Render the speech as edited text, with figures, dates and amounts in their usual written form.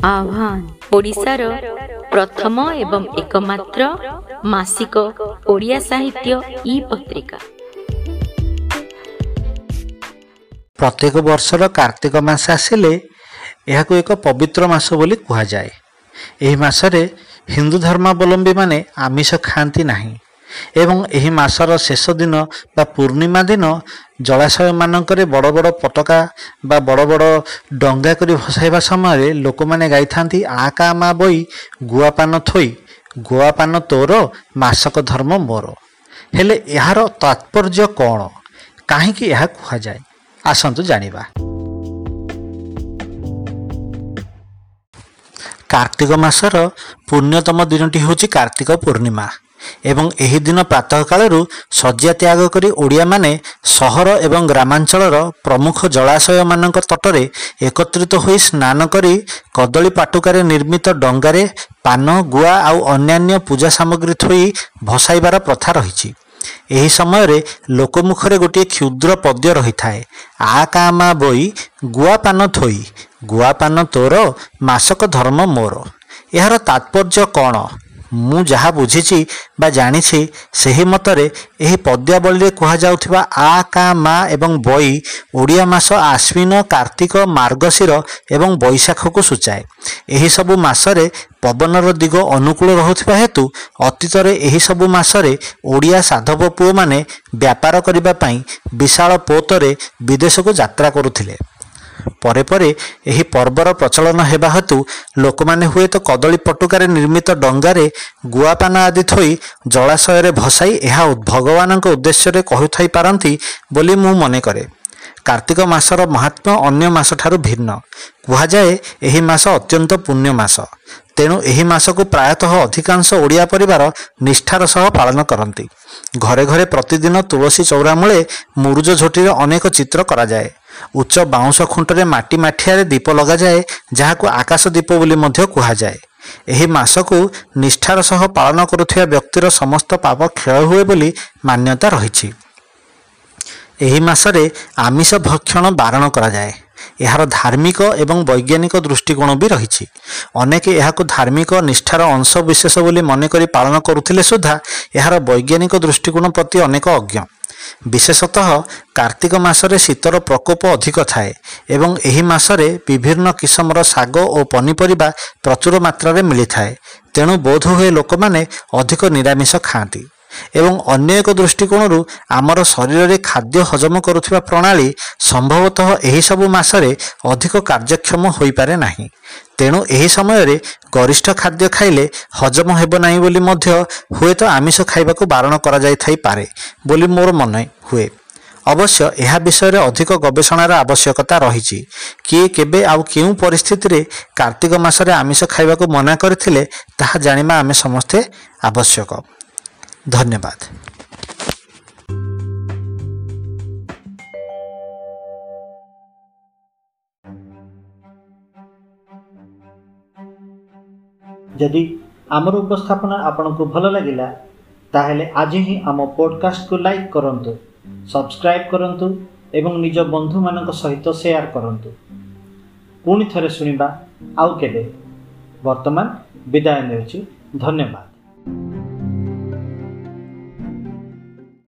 ଆହ୍ୱାନ ଓଡ଼ିଶାର ପ୍ରଥମ ଏବଂ ଏକମାତ୍ର ମାସିକ ଓଡ଼ିଆ ସାହିତ୍ୟ ଇ ପତ୍ରିକା। ପ୍ରତ୍ୟେକ ବର୍ଷର କାର୍ତ୍ତିକ ମାସ ଆସିଲେ ଏହାକୁ ଏକ ପବିତ୍ର ମାସ ବୋଲି କୁହାଯାଏ। ଏହି ମାସରେ ହିନ୍ଦୁ ଧର୍ମାବଲମ୍ବୀମାନେ ଆମିଷ ଖାଆନ୍ତି ନାହିଁ ଏବଂ ଏହି ମାସର ଶେଷ ଦିନ ବା ପୂର୍ଣ୍ଣିମା ଦିନ ଜଳାଶୟମାନଙ୍କରେ ବଡ଼ ବଡ଼ ପତାକା ବା ବଡ଼ ବଡ଼ ଡଙ୍ଗା କରି ଭସାଇବା ସମୟରେ ଲୋକମାନେ ଗାଇଥାନ୍ତି, ଆ କା ମା ବଇ ଗୁଆପାନ ଥୋଇ, ଗୁଆପାନ ତୋର ମାସକ ଧର୍ମ ମୋର। ହେଲେ ଏହାର ତାତ୍ପର୍ଯ୍ୟ କ'ଣ, କାହିଁକି ଏହା କୁହାଯାଏ, ଆସନ୍ତୁ ଜାଣିବା। କାର୍ତ୍ତିକ ମାସର ପୁଣ୍ୟତମ ଦିନଟି ହେଉଛି କାର୍ତ୍ତିକ ପୂର୍ଣ୍ଣିମା ଏବଂ ଏହି ଦିନ ପ୍ରାତଃ କାଳରୁ ଶଯ୍ୟା ତ୍ୟାଗ କରି ଓଡ଼ିଆମାନେ ସହର ଏବଂ ଗ୍ରାମାଞ୍ଚଳର ପ୍ରମୁଖ ଜଳାଶୟମାନଙ୍କ ତଟରେ ଏକତ୍ରିତ ହୋଇ ସ୍ନାନ କରି କଦଳୀ ପାଟୁକାରେ ନିର୍ମିତ ଡଙ୍ଗାରେ ପାନ, ଗୁଆ ଆଉ ଅନ୍ୟାନ୍ୟ ପୂଜା ସାମଗ୍ରୀ ଥୋଇ ଭସାଇବାର ପ୍ରଥା ରହିଛି। ଏହି ସମୟରେ ଲୋକମୁଖରେ ଗୋଟିଏ କ୍ଷୁଦ୍ର ପଦ୍ୟ ରହିଥାଏ, ଆ କା ମା ବଇ ଗୁଆ ପାନ ଥୋଇ, ଗୁଆ ପାନ ତୋର ମାସକ ଧର୍ମ ମୋର। ଏହାର ତାତ୍ପର୍ଯ୍ୟ କ'ଣ? ମୁଁ ଯାହା ବୁଝିଛି ବା ଜାଣିଛି ସେହି ମତରେ ଏହି ପଦ୍ୟାବଳୀରେ କୁହାଯାଉଥିବା ଆ କା ମା ଏବଂ ବଇ ଓଡ଼ିଆ ମାସ ଆଶ୍ୱିନ, କାର୍ତ୍ତିକ, ମାର୍ଗଶିର ଏବଂ ବୈଶାଖକୁ ସୂଚାଏ। ଏହିସବୁ ମାସରେ ପବନର ଦିଗ ଅନୁକୂଳ ରହୁଥିବା ହେତୁ ଅତୀତରେ ଏହିସବୁ ମାସରେ ଓଡ଼ିଆ ସାଧବ ପୁଅମାନେ ବ୍ୟାପାର କରିବା ପାଇଁ ବିଶାଳ ପୋତରେ ବିଦେଶକୁ ଯାତ୍ରା କରୁଥିଲେ। ପରେ ପରେ ଏହି ପର୍ବର ପ୍ରଚଳନ ହେବା ହେତୁ ଲୋକମାନେ ହୁଏତ କଦଳୀ ପଟୁକାରେ ନିର୍ମିତ ଡଙ୍ଗାରେ ଗୁଆପାନ ଆଦି ଥୋଇ ଜଳାଶୟରେ ଭସାଇ ଏହା ଭଗବାନଙ୍କ ଉଦ୍ଦେଶ୍ୟରେ କହୁଥାଇ ପାରନ୍ତି ବୋଲି ମୁଁ ମନେ କରେ। କାର୍ତ୍ତିକ ମାସର ମହାତ୍ମ୍ୟ ଅନ୍ୟ ମାସଠାରୁ ଭିନ୍ନ। କୁହାଯାଏ ଏହି ମାସ ଅତ୍ୟନ୍ତ ପୁଣ୍ୟ ମାସ। ତେଣୁ ଏହି ମାସକୁ ପ୍ରାୟତଃ ଅଧିକାଂଶ ଓଡ଼ିଆ ପରିବାର ନିଷ୍ଠାର ସହ ପାଳନ କରନ୍ତି। ଘରେ ଘରେ ପ୍ରତିଦିନ ତୁଳସୀ ଚଉରା ମୂଳେ ମୁରୁଜ ଝୋଟିରେ ଅନେକ ଚିତ୍ର କରାଯାଏ। ଉଚ୍ଚ ବାଉଁଶ ଖୁଣ୍ଟରେ ମାଟି ମାଠିଆରେ ଦୀପ ଲଗାଯାଏ, ଯାହାକୁ ଆକାଶ ଦୀପ ବୋଲି ମଧ୍ୟ କୁହାଯାଏ। ଏହି ମାସକୁ ନିଷ୍ଠାର ସହ ପାଳନ କରୁଥିବା ବ୍ୟକ୍ତିର ସମସ୍ତ ପାପ କ୍ଷୟ ହୁଏ ବୋଲି ମାନ୍ୟତା ରହିଛି। ଏହି ମାସରେ ଆମିଷ ଭକ୍ଷଣ ବାରଣ କରାଯାଏ। ଏହାର ଧାର୍ମିକ ଏବଂ ବୈଜ୍ଞାନିକ ଦୃଷ୍ଟିକୋଣ ବି ରହିଛି। ଅନେକ ଏହାକୁ ଧାର୍ମିକ ନିଷ୍ଠାର ଅଂଶ ବିଶେଷ ବୋଲି ମନେକରି ପାଳନ କରୁଥିଲେ ସୁଦ୍ଧା ଏହାର ବୈଜ୍ଞାନିକ ଦୃଷ୍ଟିକୋଣ ପ୍ରତି ଅନେକ ଅଜ୍ଞ। ବିଶେଷତଃ କାର୍ତ୍ତିକ ମାସରେ ଶୀତର ପ୍ରକୋପ ଅଧିକ ଥାଏ ଏବଂ ଏହି ମାସରେ ବିଭିନ୍ନ କିସମର ଶାଗ ଓ ପନିପରିବା ପ୍ରଚୁର ମାତ୍ରାରେ ମିଳିଥାଏ। ତେଣୁ ବୋଧହୁଏ ଲୋକମାନେ ଅଧିକ ନିରାମିଷ ଖାଆନ୍ତି। ଏବଂ ଅନ୍ୟ ଏକ ଦୃଷ୍ଟିକୋଣରୁ ଆମର ଶରୀରରେ ଖାଦ୍ୟ ହଜମ କରୁଥିବା ପ୍ରଣାଳୀ ସମ୍ଭବତଃ ଏହିସବୁ ମାସରେ ଅଧିକ କାର୍ଯ୍ୟକ୍ଷମ ହୋଇପାରେ ନାହିଁ। ତେଣୁ ଏହି ସମୟରେ ଗରିଷ୍ଠ ଖାଦ୍ୟ ଖାଇଲେ ହଜମ ହେବ ନାହିଁ ବୋଲି ମଧ୍ୟ ହୁଏତ ଆମିଷ ଖାଇବାକୁ ବାରଣ କରାଯାଇଥାଇପାରେ ବୋଲି ମୋର ମନେ ହୁଏ। ଅବଶ୍ୟ ଏହା ବିଷୟରେ ଅଧିକ ଗବେଷଣାର ଆବଶ୍ୟକତା ରହିଛି। କିଏ, କେବେ ଆଉ କେଉଁ ପରିସ୍ଥିତିରେ କାର୍ତ୍ତିକ ମାସରେ ଆମିଷ ଖାଇବାକୁ ମନା କରିଥିଲେ ତାହା ଜାଣିବା ଆମେ ସମସ୍ତେ ଆବଶ୍ୟକ। ଧନ୍ୟବାଦ। ଯଦି ଆମର ଉପସ୍ଥାପନା ଆପଣଙ୍କୁ ଭଲ ଲାଗିଲା, ତାହେଲେ ଆଜି ହିଁ ଆମ ପଡ଼କାଷ୍ଟକୁ ଲାଇକ୍ କରନ୍ତୁ, ସବସ୍କ୍ରାଇବ୍ କରନ୍ତୁ ଏବଂ ନିଜ ବନ୍ଧୁମାନଙ୍କ ସହିତ ସେୟାର କରନ୍ତୁ। ପୁଣି ଥରେ ଶୁଣିବା ଆଉ କେବେ। ବର୍ତ୍ତମାନ ବିଦାୟ ନେଉଛି। ଧନ୍ୟବାଦ।